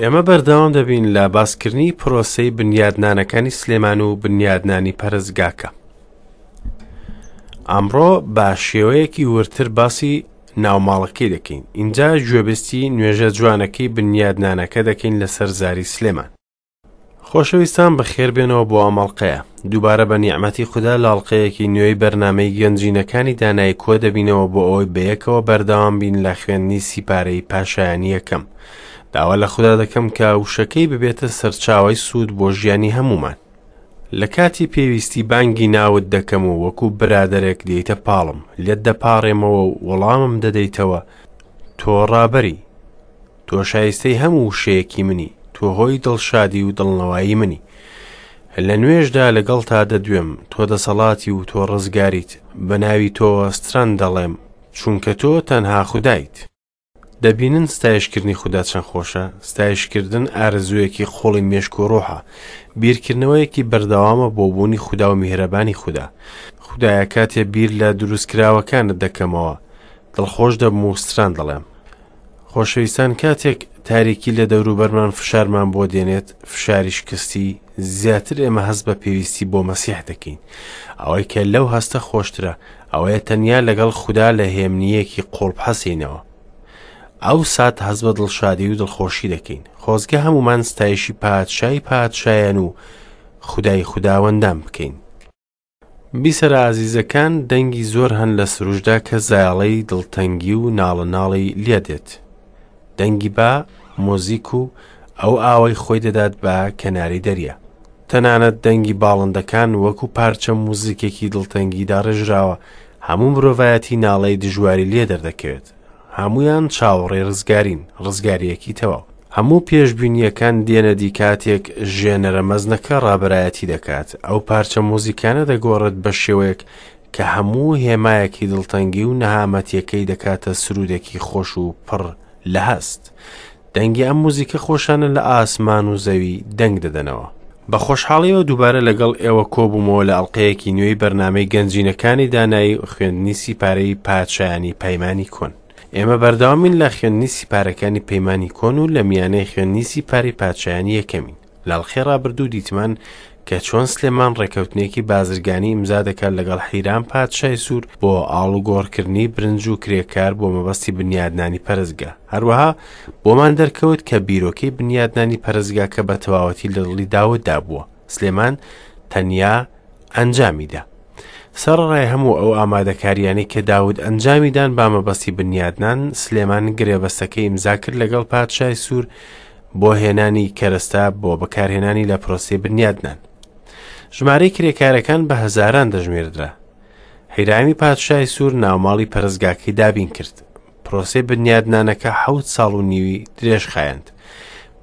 ئێمە بەردەوام دەبین لە باسکردنی پرۆسەی بنیادنانەکانی سلێمان و بنیادنانی پەرستگاکە. ئەمڕۆ بە شێوەیەکی وردتر باسی ناوماڵەکەی دەکەین، ئینجا گوێبیستی نوێژە جوانەکەی بنیادنانەکە دەکەین لەسەر زاری سلێمان. خۆشەویستان بەخێربێنەوە بۆ ئەم ئەڵقەیە. دووبارە بە نیعمەتی خودا لە ئەڵقەیەکی نوێی بەرنامەی گەنجینەکانی دانایی کۆ دەبینەوە بۆ ئەوەی بەیەکەوە بەردەوام بین لە خوێندنی سیپارەی پاشایانی یەکەم. داوا لە خودا دەکەم کە وشەکەی ببێتە سەرچاوەی سوود بۆ ژیانی هەموومان. لە کاتی پێویستی بانگی ناوت دەکەم و وەکو برادەرێک دێیتە پاڵم، لێت دەپاڕێمەوە و وەڵامم دەدەیتەوە، تۆ ڕابەری. تۆ شایستەی هەموو وشەیەکی منی، تۆ هۆی دڵشادی و دڵنەوایی منی. لە نوێژدا لەگەڵتا دەدوێم، تۆ دەسەڵاتی و تۆ ڕزگاریت، بە ناوی تۆوە ستران دەڵێم، چونکە تۆ تەنها خودایت. دەبینن ستایشکردنی خودا چەند خۆشە؟ ستایشکردن ئارەزوویەکی قوڵی مێشک و ڕۆحە، بیرکردنەوەیەکی بەردەوامە بۆ بوونی خودا و میهرەبانی خودا. خودایە کاتێ بیر لە دروستکراوەکانت دەکەمەوە، دڵخۆش دەبم و ستران دەڵێم. خۆشەویستان کاتێک تاریکی لە دەوروبەرمان فشارمان بۆ دێنێت، فشاری شکستی، زیاتر ئێمە هەست بە پێویستی بۆ مەسیح دەکەین. ئەوەی کە لەو هەستە خۆشترە، ئەوەیە تەنیا لەگەڵ خودا لە هێمنییەکی قوڵ بحەسێینەوە. ئەو سات هەست بە دڵشادی و دڵخۆشی دەکەین. خۆزگە هەموومان ستایشی پادشای پادشایان و خودای خوداوەندان بکەین. بیسەرە ئازیزەکان دەنگی زۆر هەن لە سروشدا کە زایەڵەی دڵتەنگی و ناڵە ناڵی لێ دێت. دەنگی با، مۆزیک و ئەو ئاوەی خۆی دەدات بە کەناری دەریا. تەنانەت دەنگی باڵندەکان وەکو پارچە موزیکێکی دڵتەنگی داڕێژراوە، هەموو مرۆڤایەتی ناڵەی دژواری لێ دەردەکەوێت. هەموویان چاوەڕێی ڕزگارین، ڕزگارییەکی تەواو. هەموو پێشبینییەکان دێنە دی کاتێک ژێنەرە مەزنەکە ڕابەرایەتی دەکات، ئەو پارچە موزیکانە دەگۆڕێت بە شێوەیەک کە هەموو هێمایەکی دڵتەنگی و نەهامەتیەکەی دەکاتە سروودێکی خۆش و پڕ لە هەست. دەنگی ئەم موزیکە خۆشانە لە ئاسمان و زەوی دەنگ دەدەنەوە. بە خۆشحاڵیەوە دووبارە لەگەڵ ئێوە کۆبوومەوە لە ئەڵقەیەکی نوێی بەرنامەی گەنجینەکانی دانایی و خوێندنی سیپارەی پادشایانی پەیمانی کۆن. ئێمە بەردەوامین لە خوێندنی سیپارەکانی پەیمانی کۆن و لە میانەی خوێندنی سیپاری پادشایانی یەکەمین. لە ئەڵقەی ڕابردوو دیتمان کە چۆن سلێمان ڕێکەوتنێکی بازرگانی ئیمزا دەکات لەگەڵ حیرام پادشای سوور بۆ ئاڵوگۆڕکردنی برنج و کرێکار بۆ مەبەستی بنیادنانی پەرستگا. هەروەها بۆمان دەرکەوت کە بیرۆکەی بنیادنانی پەرستگاکە بە تەواوەتی لە دڵی داوددا بووە. سلێمان تەنیا ئەنجامیدا. سەرەڕای هەموو ئەو ئامادەکاریانەی کە داود ئەنجامی دان با مەبەستی بنیادنان، سلێمان گرێبەستەکەی ئیمزا کرد لەگەڵ پادشای سوور بۆ هێنانی کەرەستە بۆ بەکارهێنانی لە پرۆسەی بنیادنان. ژمارەی کرێکارەکان بە هەزاران دەژمێردرا. حیرامی پادشای سوور ناوماڵی پەرستگاکەی دابین کرد. پرۆسەی بنیادنانەکە حەوت ساڵ و نیوی درێژخایەند.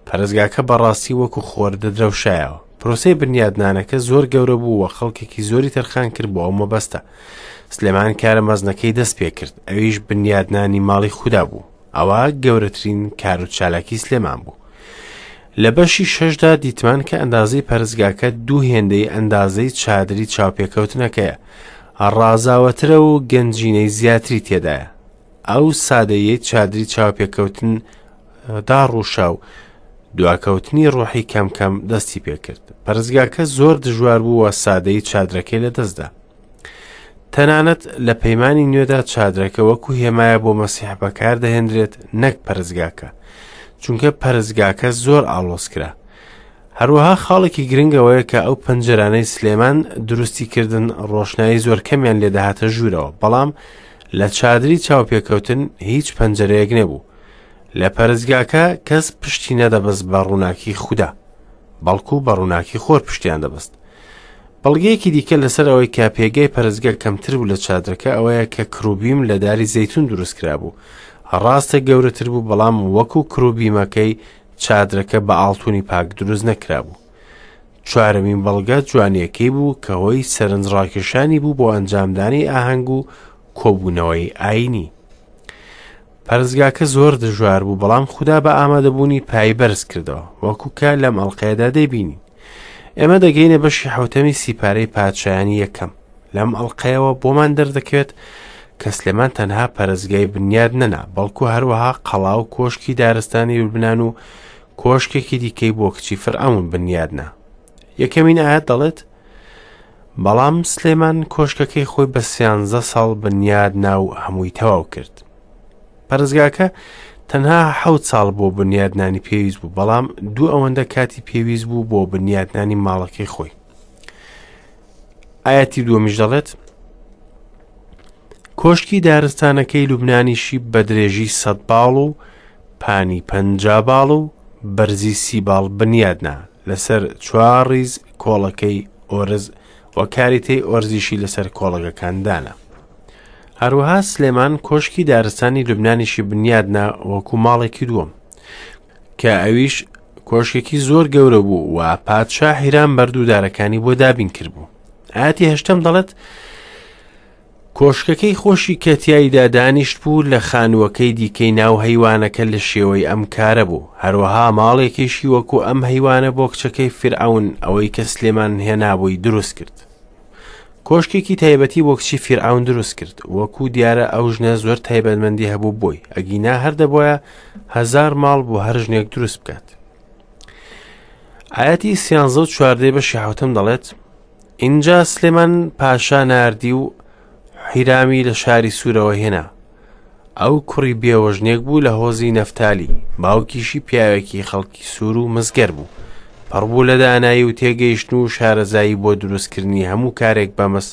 پەرستگاکە بەڕاستی وەکو خۆر دەدرەوشایەوە. پرۆسەی بنیادنانەکە زۆر گەورە بوو و خەڵکێکی زۆری تەرخان کرد بۆ ئەو مەبەستە. سلێمان کارە مەزنەکەی دەست پێ کرد، ئەویش بنیادنانی ماڵی خودا بوو. ئەوە گەورەترین کار و چالاکی سلێمان بوو. لە بەشی شەشدا دیتمان کە ئەندازەی پەرستگاکە دوو هێندەی ئەندازەی چادری چاوپێکەوتنەکەیە، ڕازاوەترە و گەنجینەی زیاتری تێدایە. ئەو سادەیەی چادری چاوپێکەوتن داڕووشا و دواکەوتنی ڕۆحی کەم کەم دەستی پێکرد. پەرستگاکە زۆر دژوار بوو و سادەی چادرەکەی لەدەستدا. تەنانەت لە پەیمانی نوێدا چادرەکە وەکو هێمایە بۆ مەسیح بەکاردەهێنرێت نەک پەرستگاکە، چونکە پەرستگاکە زۆر ئاڵۆز کرا. هەروەها خاڵێکی گرنگ ئەوەیە کە ئەو پەنجەرانەی سلێمان دروستی کردن ڕۆشنایی زۆر کەمیان لێدەهاتە ژوورەوە، بەڵام لە چادری چاوپێکەوتن هیچ پەنجەرەیەک نەبوو. لە پەرستگاکە کەس پشتی نەدەبەست بە ڕووناکی خودا، بەڵکو بە ڕووناکی خۆر پشتیان دەبەست. بەڵگەیەکی دیکە لەسەر ئەوەی کە پێگەی پەرستگا کەمتر بوو لە چادرەکە ئەوەیە کە کروبیم لە داری زەیتون دروست کرابوو. ڕاستە گەورەتر بوو بەڵام وەکو کروبیمەکەی چادرەکە بە ئاڵتونی پاک دروست نەکرابوو. چوارەمین بەڵگە جوانیەکەی بوو کە هۆی سەرنجڕاکێشانی بوو بۆ ئەنجامدانی ئاهەنگ و کۆبوونەوەی ئایینی. پەرستگاکە زۆر دژوار بوو بەڵام خودا بە ئامادەبوونی پای بەرز کردەوە وەکو کە لەم ئەڵقەیەدا دەیبینین. ئێمە دەگەینە بەشی حەوتەمی سیپارەی پادشایانی یەکەم. لەم ئەڵقەیەوە بۆمان دەردەکەوێت کە سلێمان تەنها پەرستگای بنیاد نەنا، بەڵکو هەروەها قەڵا و کۆشکی دارستانی لوبنان و کۆشکێکی دیکەی بۆ کچی فەرعەون بنیادنا. یەکەمین ئایەت دەڵێت، بەڵام سلێمان کۆشکەکەی خۆی بە سیانزە ساڵ بنیادنا و هەمووی تەواو کرد. پەرستگاکە تەنها حەوت ساڵ بۆ بنیادنانی پێویست بوو، بەڵام دوو ئەوەندە کاتی پێویست بوو بۆ بنیادنانی ماڵەکەی خۆی. ئاەتی دووەمیش دەڵێت کۆشکی دارستانەکەی لوبنانیشی بە درێژی سەد باڵ و پانی پەنجا باڵ و بەرزی سی باڵ بنیادنا لەسەر چوار ڕیز کۆڵەکەی ئۆرز و کاریتەی ئۆرزیشی لەسەر کۆڵەگەکان دانا. هەروەها سلێمان کۆشکی دارستانی لوبنانیشی بنیادنا وەکو ماڵێکی دووەم کە ئەویش کۆشکێکی زۆر گەورە بوو و پادشا حیرام بەرد و دارەکانی بۆ دابین کردبوو. ئاەتی هەشتەم دەڵێت کۆشکەکەی خۆشی کە تیایدا دانیشت بوو لە خانووەکەی دیکەی ناو هەیوانەکە لە شێوەی ئەم کارە بوو، هەروەها ماڵێکیشی وەکو ئەم هەیوانە بۆ کچەکەی فیرعەون ئەوەی کە سلێمان هێنابووی دروست کرد. کۆشکێکی تایبەتی بۆ کچی فیرعەون دروست کرد، وەکو دیارە ئەو ژنە زۆر تایبەتمەندی هەبوو بۆی، ئەگینا هەر دەبوایە هەزار ماڵ بۆ هەر ژنێک دروست بکات. ئاەتی سیانزە و چواردەی بەشی حوتم دەڵێت ئینجا سلێمان پاشا ناردی و حیرامی لە شاری سوورەوە هێنا. ئەو کوڕی بێوەژنێک بوو لە هۆزی نەفتالی، باوکیشی پیاوێکی خەڵکی سوور و مسگەر بوو. پڕ بوو لە دانایی و تێگەیشتن و شارەزایی بۆ دروستکردنی هەموو کارێک بە مس،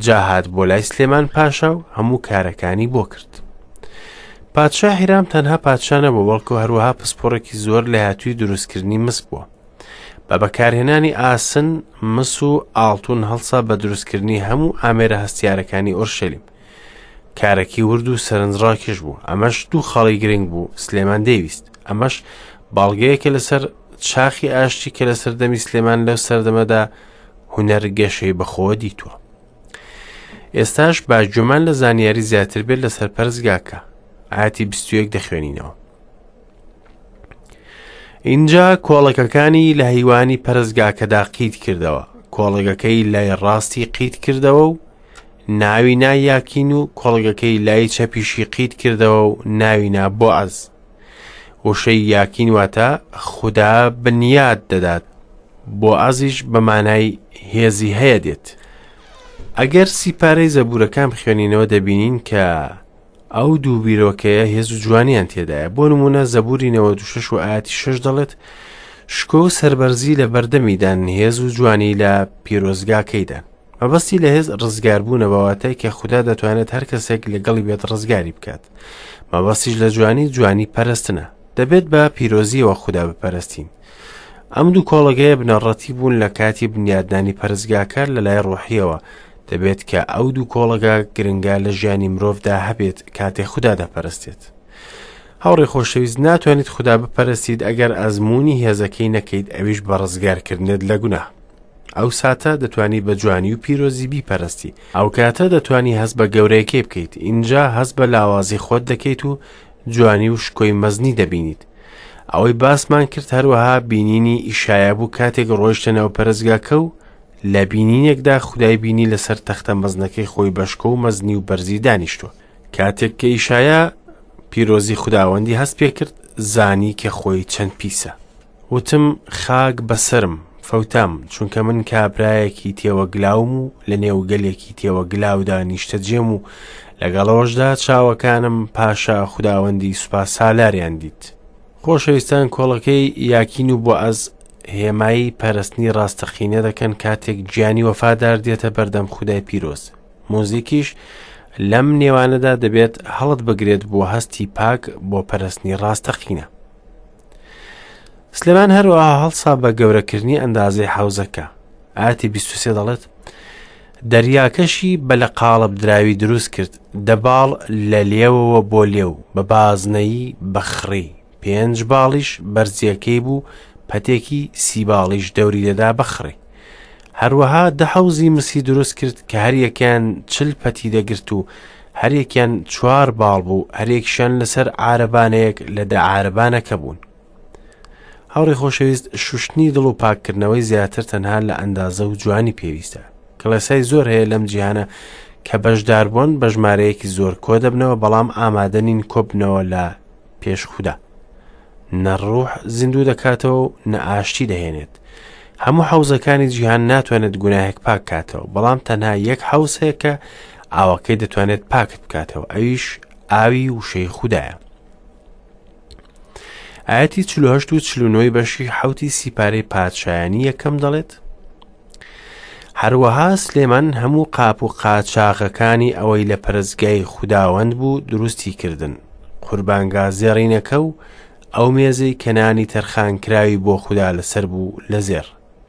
جا هات بۆ لای سلێمان پاشا و هەموو کارەکانی بۆ کرد. پادشا حیرام تەنها پادشا نەبوو، بەڵکو هەروەها پسپۆڕێکی زۆر لێهاتووی دروستکردنی مس بووە. بە بەکارهێنانی ئاسن، مس و ئاڵتون هەڵسا بە دروستکردنی هەموو ئامێرە هەستیارەکانی ئۆرشەلیم. کارەکی ورد و سەرنجڕاکێش بوو. ئەمەش دوو خاڵی گرنگ بوو سلێمان دەیویست. ئەمەش بەڵگەیەکە لەسەر چاخی ئاشتی کە لە سەردەمی سلێمان لەو سەردەمەدا هونەر گەشەی بەخۆوە دیتووە. ئێستاش با گوێمان لە زانیاری زیاتر بێت لەسەر پەرستگاکە. ئاەتی 21 دەخوێنینەوە. ئینجا کۆڵەکەکانی لە هەیوانی پەرستگاکەدا قیت کردەوە، کۆڵەگەکەی لای ڕاستی قیت کردەوە و ناوی نا یاکین و کۆڵگەکەی لای چەپیشی قیت کردەوە و ناوی نا بۆعەز. وشەی یاکین واتە خودا بنیات دەدات، بۆعەزیش بە مانای هێزی هەیە دێت. ئەگەر سیپارەی زەبوورەکان بخوێنینەوە دەبینین کە ئەو دوو بیرۆکەیە هێز و جوانیان تێدایە. بۆ نموونە زەبووری 96 و ئاەتی 6 دەڵێت شکۆ و سەربەرزی لە بەردەمیدان، هێز و جوانی لە پیرۆزگاکەیدان. مەبەستی لە هێز ڕزگاربوونە بە واتای کە خودا دەتوانێت هەر کەسێک لەگەڵی بێت ڕزگاری بکات. مەبەستیش لە جوانی جوانی پەرستنە. دەبێت بە پیرۆزیەوە خودا بپەرستین. ئەم دوو کۆڵەگەیە بنەڕەتی بوون لە کاتی بنیادنانی پەرستگاکە لە لای ڕۆحیەوە، دەبێت کە ئەو دوو کۆڵەگە گرنگە لە ژیانی مرۆڤدا هەبێت کاتێ خودا دەپەرستێت. هاوڕێ خۆشەویست ناتوانیت خودا بپەرستیت ئەگەر ئەزموونی هێزەکەی نەکەیت ئەویش بە ڕزگارکردنت لە گوناه. ئەو ساتە دەتوانی بە جوانی و پیرۆزی بیپەرستی. ئەو کاتە دەتوانی هەست بە گەورەیەکەی بکەیت، ئینجا هەست بە لاوازی خۆت دەکەیت و جوانی و شکۆی مەزنی دەبینیت. ئەوەی باسمان کرد هەروەها بینینی ئیشایا بوو کاتێک ڕۆیشتە ناو پەرستگاکە و لە بینینێکدا خودای بینی لەسەر تەختە مەزنەکەی خۆی بە شکۆ و مەزنی و بەرزی دانیشتووە. کاتێک کە ئیشایا پیرۆزی خوداوەندی هەست پێ کرد زانی کە خۆی چەند پیسە. وتم خاک بەسەرم، فەوتام، چونکە من کابرایەکی تێوەگلاوم و لە نێو گەلێکی تێوەگلاودا نیشتەجێم و لەگەڵ ئەوەشدا چاوەکانم پاشا خوداوەندی سوپا سالاریان دیت. خۆشەویستان کۆڵەکەی یاکین و بۆعەز هێمای پەرستنی ڕاستەقینە دەکەن کاتێک گیانی وەفادار دێتە بەردەم خودای پیرۆز. موزیکیش لەم نێوانەدا دەبێت هەڵت بگرێت بۆ هەستی پاک بۆ پەرستنی ڕاستەقینە. سلێمان هەروەها هەڵسا بە گەورەکردنی ئەندازەی حەوزەکە. ئاەتی 23 دەڵێت دەریاکەشی بە لە قاڵب دراوی دروست کرد، دە باڵ لە لێوەوە بۆ لێو، بە بازنەیی بە خڕی، پێنج باڵیش بەرزیەکەی بوو، پەتێکی سی باڵیش دەوری دەدا بە خڕی. هەروەها دە حەوزی مسی دروست کرد کە هەریەکەیان چل پەتی دەگرت و هەریەکیان چوار باڵ بوو، هەریەکیشیان لەسەر عارەبانەیەک لە دە عارەبانەکە بوون. هاوڕێ خۆشەویست شوشتنی دڵ و پاککردنەوەی زیاتر تەنها لە ئەندازە و جوانی پێویستە. کڵێسای زۆر هەیە لەم جیهانە کە بەشداربوون بە ژمارەیەکی زۆر کۆ دەبنەوە بەڵام ئامادە نین کۆبنەوە لە پێش خودا. نە ڕوح زیندوو دەکاتەوە و نە ئاشتی دەهێنێت. هەموو حەوزەکانی جیهان ناتوانێت گوناهێک پاک کاتەوە، بەڵام تەنها یەک حەوز هەیە کە ئاوەکەی دەتوانێت پاکت بکاتەوە، ئەویش ئاوی وشەی خودایە. ئاەتی 48 و 49 بەشی حوتی سیپارەی پادشایانی یەکەم دەڵێت هەروەها سلێمان هەموو قاپ و قاچاغەکانی ئەوەی لە پەرستگای خوداوەند بوو دروستی کردن، قوربانگا زێڕینەکە و ئەو مێزەی کە نانی تەرخانکراوی بۆ خودا لەسەر بوو لە زێڕ،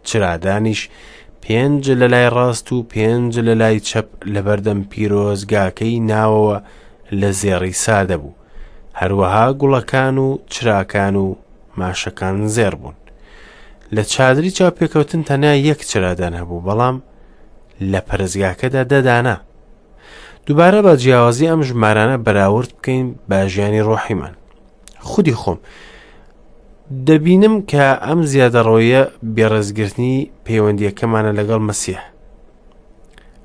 چرادانیش پێنج لە لای ڕاست و پێنج لە لای چەپ لەبەردەم پیرۆزگاکەی ناوەوە لە زێڕی سادە بوو، هەروەها گوڵەکان و چراکان و ماشەکان زێڕ بوون. لە چادری چاوپێکەوتن تەنیا یەک چرادان هەبوو، بەڵام لە پەرستگاکەدا دە دانە. دووبارە بە جیاوازی ئەم ژمارانە بەراورد بکەین بە ژیانی ڕۆحیمان. خودی خۆم دەبینم کە ئەم زیادەڕۆیە بێڕێزگرتنی پەیوەندیەکەمانە لەگەڵ مەسیح.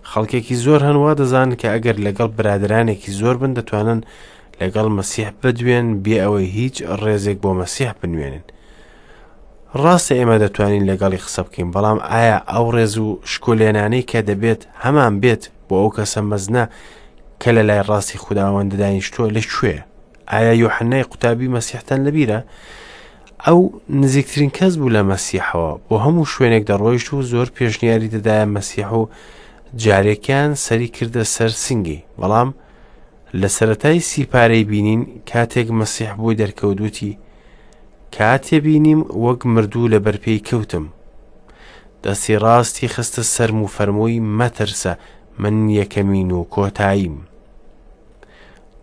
خەڵکێکی زۆر هەن وا دەزانن کە ئەگەر لەگەڵ برادرانێکی زۆر بن دەتوانن لەگەڵ مەسیح بدوێن بێ ئەوەی هیچ ڕێزێک بۆ مەسیح بنوێنن. ڕاستە ئێمە دەتوانین لەگەڵی قسە بکەین، بەڵام ئایا ئەو ڕێز و شکۆلێنانەی کە دەبێت هەمان بێت بۆ ئەو کەسە مەزنە کە لە لای ڕاستی خوداوەند دانیشتووە لە کوێیە؟ ئایا یۆحەنای قوتابی مەسیحتان لەبیرە؟ ئەو نزیکترین کەس بوو لە مەسیحەوە، بۆ هەموو شوێنێک دەڕۆیشت و زۆر پێشنیاری دەدایە مەسیح و جارێکیان سەری کردە سەر سنگی، بەڵام لە سەرەتای سیپارەی بینین کاتێک مەسیح بۆی دەرکەوت وتی کاتێ بینیم وەک مردوو لە بەرپێی کەوتم. دەستی ڕاستی خستە سەرم و فەرمووی مەترسە من یەکەمین و کۆتاییم.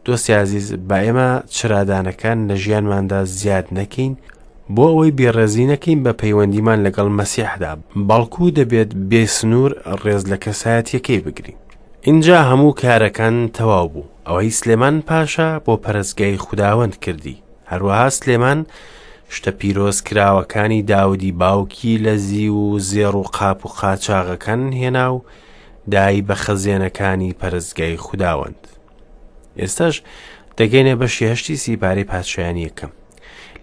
دۆستی ئازیز با ئێمە چرادانەکان لە ژیانماندا زیاد نەکەین بۆ ئەوەی بێڕێزی نەکەین بە پەیوەندیمان لەگەڵ مەسیحدا، بەڵکو دەبێت بێ سنوور ڕێز لە کەسایەتیەکەی بگرین. ئینجا هەموو کارەکان تەواو بوو، ئەوەی سلێمان پاشا بۆ پەرستگای خوداوەند کردی. هەروەها سلێمان شتە پیرۆزکراوەکانی داودی باوکی لە زیو و زێڕ و قاپ و قاچاغەکان هێنا و دای بە خەزێنەکانی پەرستگای خوداوەند. ئێستاش دەگەینە بەشی هەشتی سیپارەی پادشایانی یەکەم.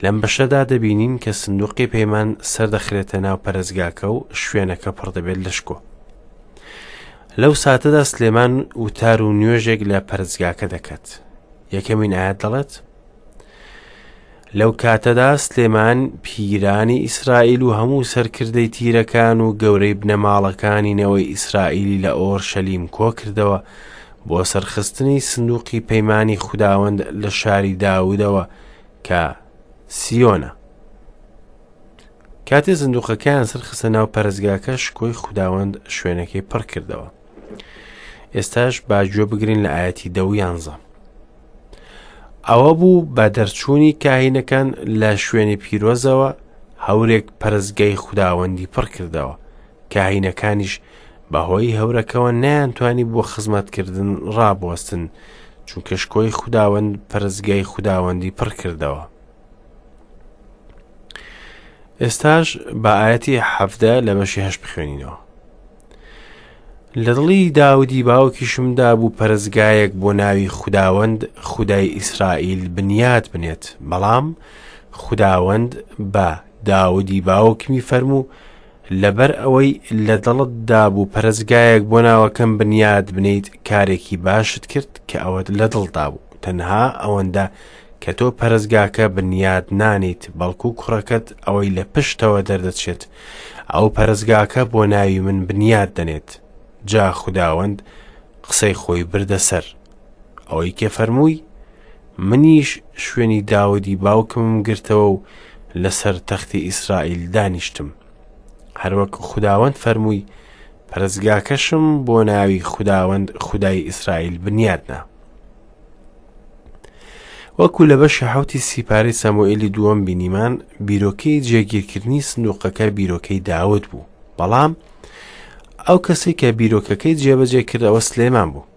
لەم بەشەدا دەبینین کە سندوقی پەیمان سەردەخرێتە ناو پەرستگاکە و شوێنەکە پڕ دەبێت لە شکۆ. لەو ساتەدا سلێمان وتار و نوێژێک لە پەرستگاکە دەکات. یەکەمین ئاەت دەڵێت لەو کاتەدا سلێمان پیرانی ئیسرائیل و هەموو سەرکردەی تیرەکان و گەورەی بنەماڵەکانی نەوەی ئیسرائیلی لە ئۆرشەلیم کۆکردەوە بۆ سەرخستنی سندوقی پەیمانی خوداوەند لە شاری داودەوە کە سیۆنە. کاتێ سندوقەکەیان سەرخستە ناو پەرستگاکە شکۆی خوداوەند شوێنەکەی پڕ کردەوە. ئێستاش با گوێ بگرین لە ئاەتی دە و یانزە. ئەوە بوو بە دەرچوونی کاهینەکان لە شوێنی پیرۆزەوە هەورێک پەرستگای خوداوەندی پڕ کردەوە. کاهینەکانیش بەهۆی هەورەکەوە نەیانتوانی بۆ خزمەتکردن ڕابوەستن، چونکە شکۆی خوداوەند پەرستگای خوداوەندی پڕ کردەوە. ئێستاش بە ئاەتی حەفدە لە بەشی هەشت بخوێنینەوە. لە دڵی داودی باوکیشمدا بوو پەرستگایەک بۆ ناوی خوداوەند خودای ئیسرائیل بنیات بنێت، بەڵام خوداوەند بە داودی باوکمی فەرموو لەبەر ئەوەی لە دڵتدا بوو پەرستگایەک بۆ ناوەکەم بنیات بنێیت کارێکی باشت کرد کە ئەوەت لە دڵدا بوو تەنها ئەوەندە کە تۆ پەرستگاکە بنیات نانیت بەڵکو کوڕەکەت ئەوەی لە پشتەوە دەردەچێت ئەو پەرستگاکە بۆ ناوی من بنیات دەنێت جا خوداوەند قسەی خۆی بردە سەر ئەوەی کە فەرمووی منیش شوێنی داودی باوکمم گرتەوە و لەسەر تەختی ئیسرائیل دانیشتم هەروەک خوداوەند فەرمووی پەرستگاکەشم بۆ ناوی خوداوەند خودای ئیسرائیل بنیادنا وەکو لە بەشی حوتی سیپارەی سەموئێلی دووەم بینیمان بیرۆکەی جێگیرکردنی سندوقەکە بیرۆکەی داود بوو بەڵام ئەو کەسێک کە بیرۆکەکەی جێبەجێ کردەوە سلێمان بوو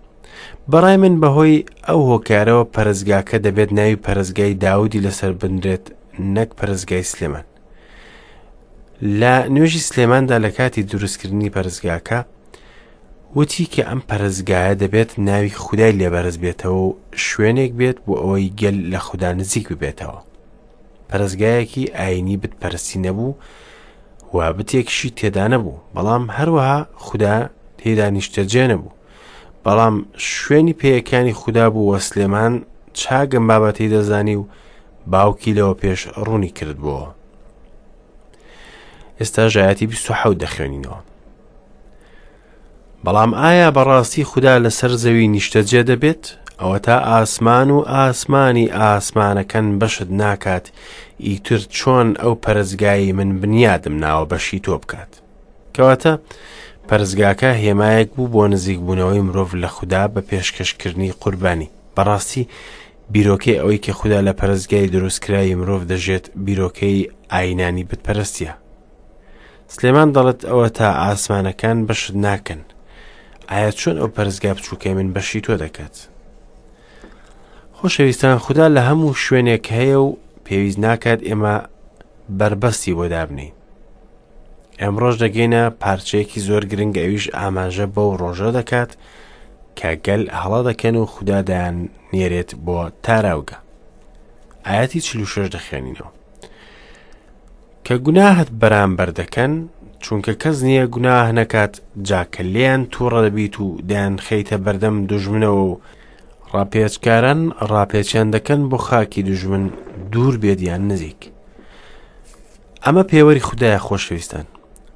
بەڕای من بەهۆی ئەو هۆکارەوە پەرستگاکە دەبێت ناوی پەرستگای داودی لەسەر بنرێت نەک پەرستگای سلێمان. لە نوێژی سلێماندا لە کاتی دروستکردنی پەرستگاکە وتی کە ئەم پەرستگایە دەبێت ناوی خودای لێبەرز بێتەوە و شوێنێک بێت بۆ ئەوەی گەل لە خودا نزیک ببێتەوە. پەرستگایەکی ئایینی بتپەرستی نەبوو و بتێکیشی تێدا نەبوو، بەڵام هەروەها خودا تێیدا نیشتەجێ نەبوو. بەڵام شوێنی پێیەکانی خودا بوو و سلێمان چاک ئەم بابەتەی دەزانی و باوکی لەوە پێش ڕوونی کردبووەوە. ئێستا ژایەتی 27 دەخوێنینەوە. بەڵام ئایا بەڕاستی خودا لەسەر زەوی نیشتەجێ دەبێت؟ ئەوەتا ئاسمان و ئاسمانی ئاسمانەکان بەشت ناکات، ئیتر چۆن ئەو پەرستگایەی من بنیادم ناوە بەشی تۆ بکات؟ کەواتە پەرستگاکە هێمایەک بوو بۆ نزیکبوونەوەی مرۆڤ لە خودا بە پێشکەشکردنی قوربانی. بەڕاستی بیرۆکەی ئەوەی کە خودا لە پەرستگای دروستکراوی مرۆڤ دەژێت بیرۆکەی ئاینانی بتپەرستیە. سلێمان دەڵێت ئەوە تا ئاسمانەکان بەشت ناکەن ئایا چۆن ئەو پەرستگا بچووکەی من بەشی تۆ دەکات خۆشەویستان خودا لە هەموو شوێنێک هەیە و پێویست ناکات ئێمە بەربەستی بۆ دابنین ئەمڕۆژ دەگەینە پارچەیەکی زۆر گرنگ ئەویش ئاماژە بەو ڕۆژە دەکات کە گەل هەڵە دەکەن و خودا دایان نێرێت بۆ تاراوگە ئاەتی 46 دەخوێنینەوە کە گوناهت بەرامبەر دەکەن، چونکە کەس نییە گوناه نەکات، جا کە لێیان تووڕە دەبیت و دەیانخەیتە بەردەم دوژمنەوە و ڕاپێچکاران ڕاپێچیان دەکەن بۆ خاکی دوژمن دوور بێت یان نزیک. ئەمە پێوەری خودایە خۆشەویستان.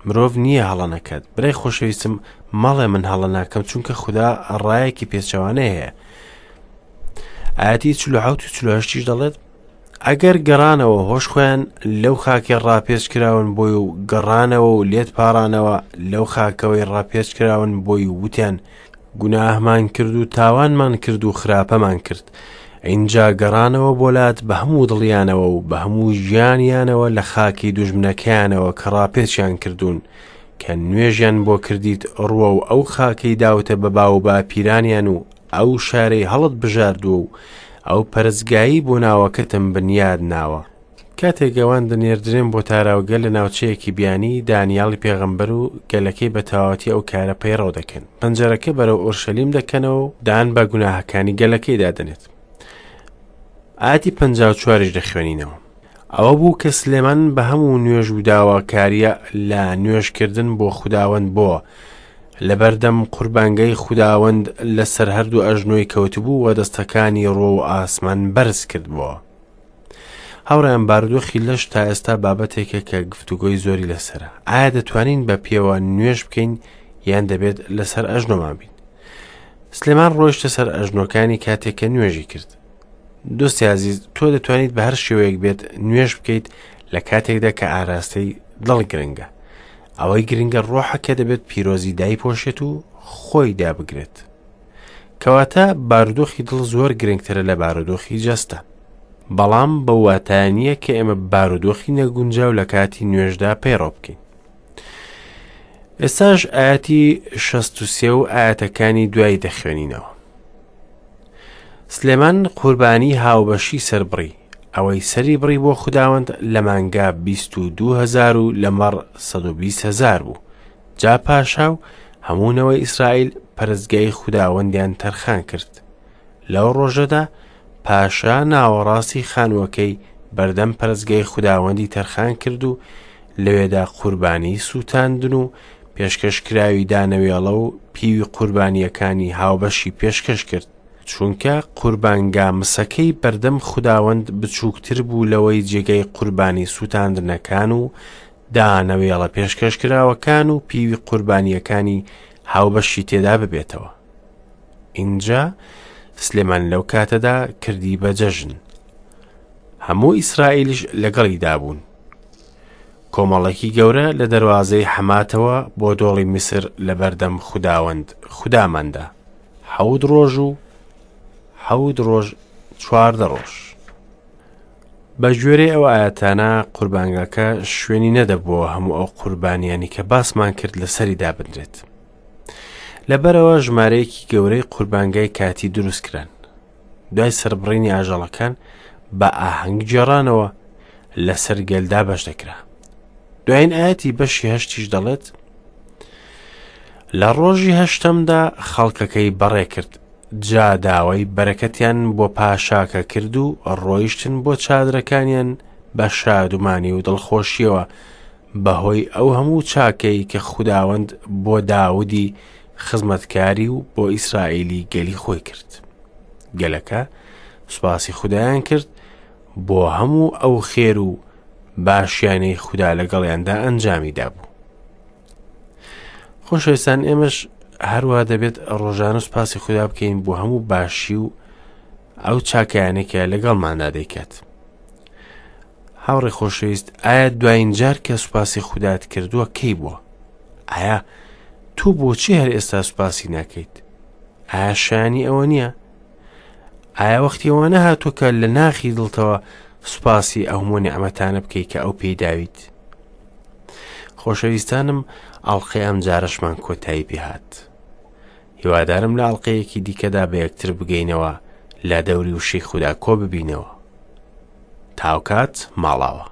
مرۆڤ نییە هەڵە نەکات. برای خۆشەویستم مەڵێ من هەڵە ناکەم چونکە خودا ڕایەکی پێچەوانەی هەیە. ئاەتی 47 و 48 دەڵێت ئەگەر گەڕانەوە هۆش خۆیان لەو خاکەی ڕاپێچ کراون بۆی و گەڕانەوە و لێت پاڕانەوە لەو خاکەوەی ڕاپێچ کراون بۆی و وتیان گوناهمان کرد و تاوانمان کرد و خراپەمان کرد ئینجا گەڕانەوە بۆ لات بە هەموو دڵیانەوە و بە هەموو ژیانیانەوە لە خاکی دوژمنەکەیانەوە کە ڕاپێچیان کردوون کە نوێژیان بۆ کردیت ڕووە و ئەو خاکەی داوتە بە باو باپیرانیان و ئەو شارەی هەڵت بژاردووە و ئەو پەرستگایەی بۆ ناوەکەتم بنیاد ناوە. کاتێک ئەوان دەنێردرێن بۆ تاراوگە لە ناوچەیەکی بیانی، دانیالی پێغەمبەر و گەلەکەی بە تەواوەتی ئەو کارە پەیڕەو دەکەن. پەنجەرەکە بەرەو ئۆرشەلیم دەکەنەوە و دان بە گوناهەکانی گەلەکەیدا دەنێت. ئایەتی 54یش دەخوێنینەوە. ئەوە بوو کە سلێمان بە هەموو نوێژ و داواکارییە لە نوێژکردن بۆ خوداوەند بۆ لەبەردەم قوربانگەی خوداوەند لەسەر هەردوو ئەژنۆی کەوتبوو و دەستەکانی ڕۆ و ئاسمان بەرز کردبووە. هاوڕێیان بارودۆخی لەش تا ئێستا بابەتێکە کە گفتوگۆی زۆری لەسەرە. ئایا دەتوانین بە پێوە نوێژ بکەین یان دەبێت لەسەر ئەژنۆمان بین؟ سلێمان ڕۆیشتە سەر ئەژنۆکانی کاتێک کە نوێژی کرد. دۆستی ئازیز تۆ دەتوانیت بە هەر شێوەیەک بێت نوێژ بکەیت لە کاتێکدا کە ئاراستەی دڵ گرنگە ئەوەی گرنگە ڕۆحە کە دەبێت پیرۆزی دایپۆشێت و خۆی دابگرێت کەواتە بارودۆخی دڵ زۆر گرنگترە لە بارودۆخی جەستە بەڵام بەو واتایە نییە کە ئێمە بارودۆخی نەگونجاو لە کاتی نوێژدا پەیڕەو بکەین ئێستاش ئاەتی 63 و ئاەتەکانی دوای دەخوێنینەوە سلێمان قوربانی هاوبەشی سەربڕی، ئەوەی سەری بڕی بۆ خوداوەند لە مانگا 22 هەزار و لە مەڕ 120 هەزار بوو. جا پاشا و هەموو نەوەی ئیسرائیل پەرستگای خوداوەندیان تەرخان کرد. لەو ڕۆژەدا پاشا ناوەڕاستی خانووەکەی بەردەم پەرستگای خوداوەندی تەرخان کرد و لەوێدا قوربانی سووتاندن و پێشکەشکراوی دانەوێڵە و پیوی قوربانییەکانی هاوبەشی پێشکەش کرد، چونکە قوربانگا مسەکەی بەردەم خوداوەند بچووکتر بوو لەوەی جێگای قوربانی سووتاندنەکان و دانەوێڵە پێشکەشکراوەکان و پیوی قوربانییەکانی هاوبەشی تێدا ببێتەوە. ئینجا سلێمان لەو کاتەدا کردی بە جەژن. هەموو ئیسرائیلیش لەگەڵیدا بوون. کۆمەڵێکی گەورە لە دەروازەی حەماتەوە بۆ دۆڵی میسر لەبەردەم خوداوەند خوداماندا، حەوت ڕۆژ و حەوت ڕۆژ 14 ڕۆژ. بە گوێرەی ئەو ئایەتانە قوربانگاکە شوێنی نەدەبووەوە هەموو ئەو قوربانیانی کە باسمان کرد لەسەری دابنرێت. لەبەرەوە ژمارەیەکی گەورەی قوربانگای کاتی دروست کران. دوای سەربڕینی ئاژەڵەکان بە ئاهەنگ گێڕانەوە لەسەر گەل دابەش دەکرا. دوایین ئاەتی بەشی هەشتیش دەڵێت لە ڕۆژی هەشتەمدا خەڵکەکەی بەڕێ کرد جا داوای بەرەکەتیان بۆ پاشاکە کرد و ڕۆیشتن بۆ چادرەکانیان بە شادومانی و دڵخۆشیەوە بەهۆی ئەو هەموو چاکەی کە خوداوەند بۆ داودی خزمەتکاری و بۆ ئیسرائیلی گەلی خۆی کرد. گەلەکە سوپاسی خودایان کرد بۆ هەموو ئەو خێر و باشیانەی خودا لەگەڵیاندا ئەنجامی دابوو. خۆشەویستان ئێمەش هەروە دەبێت ڕۆژانە سوپاسی خودا بکەین بۆ هەموو باشی و ئەو چاکیانەی کە لەگەڵماندا دەیکات. هاوڕێ خۆشەویست ئایا دوایین جار کە سوپاسی خودات کردووە کەی بووە؟ ئایا تۆ بۆچی هەر ئێستا سوپاسی ناکەیت؟ ئایا شایانی ئەوە نییە؟ ئایا وەختی ئەوە نەهاتووە کە لە ناخی دڵتەوە سوپاسی ئەو هەموو نیعمەتانە بکەیت کە ئەو پێی داویت؟ خۆشەویستانم ئەڵقەی ئەم جارەشمان کۆتایی پێهات. هیوادارم لە ئەڵقەیەکی دیکەدا بە یەکتر بگەینەوە لە دەوری وشەی خودا کۆ ببینەوە. تاوکات ماڵاوە.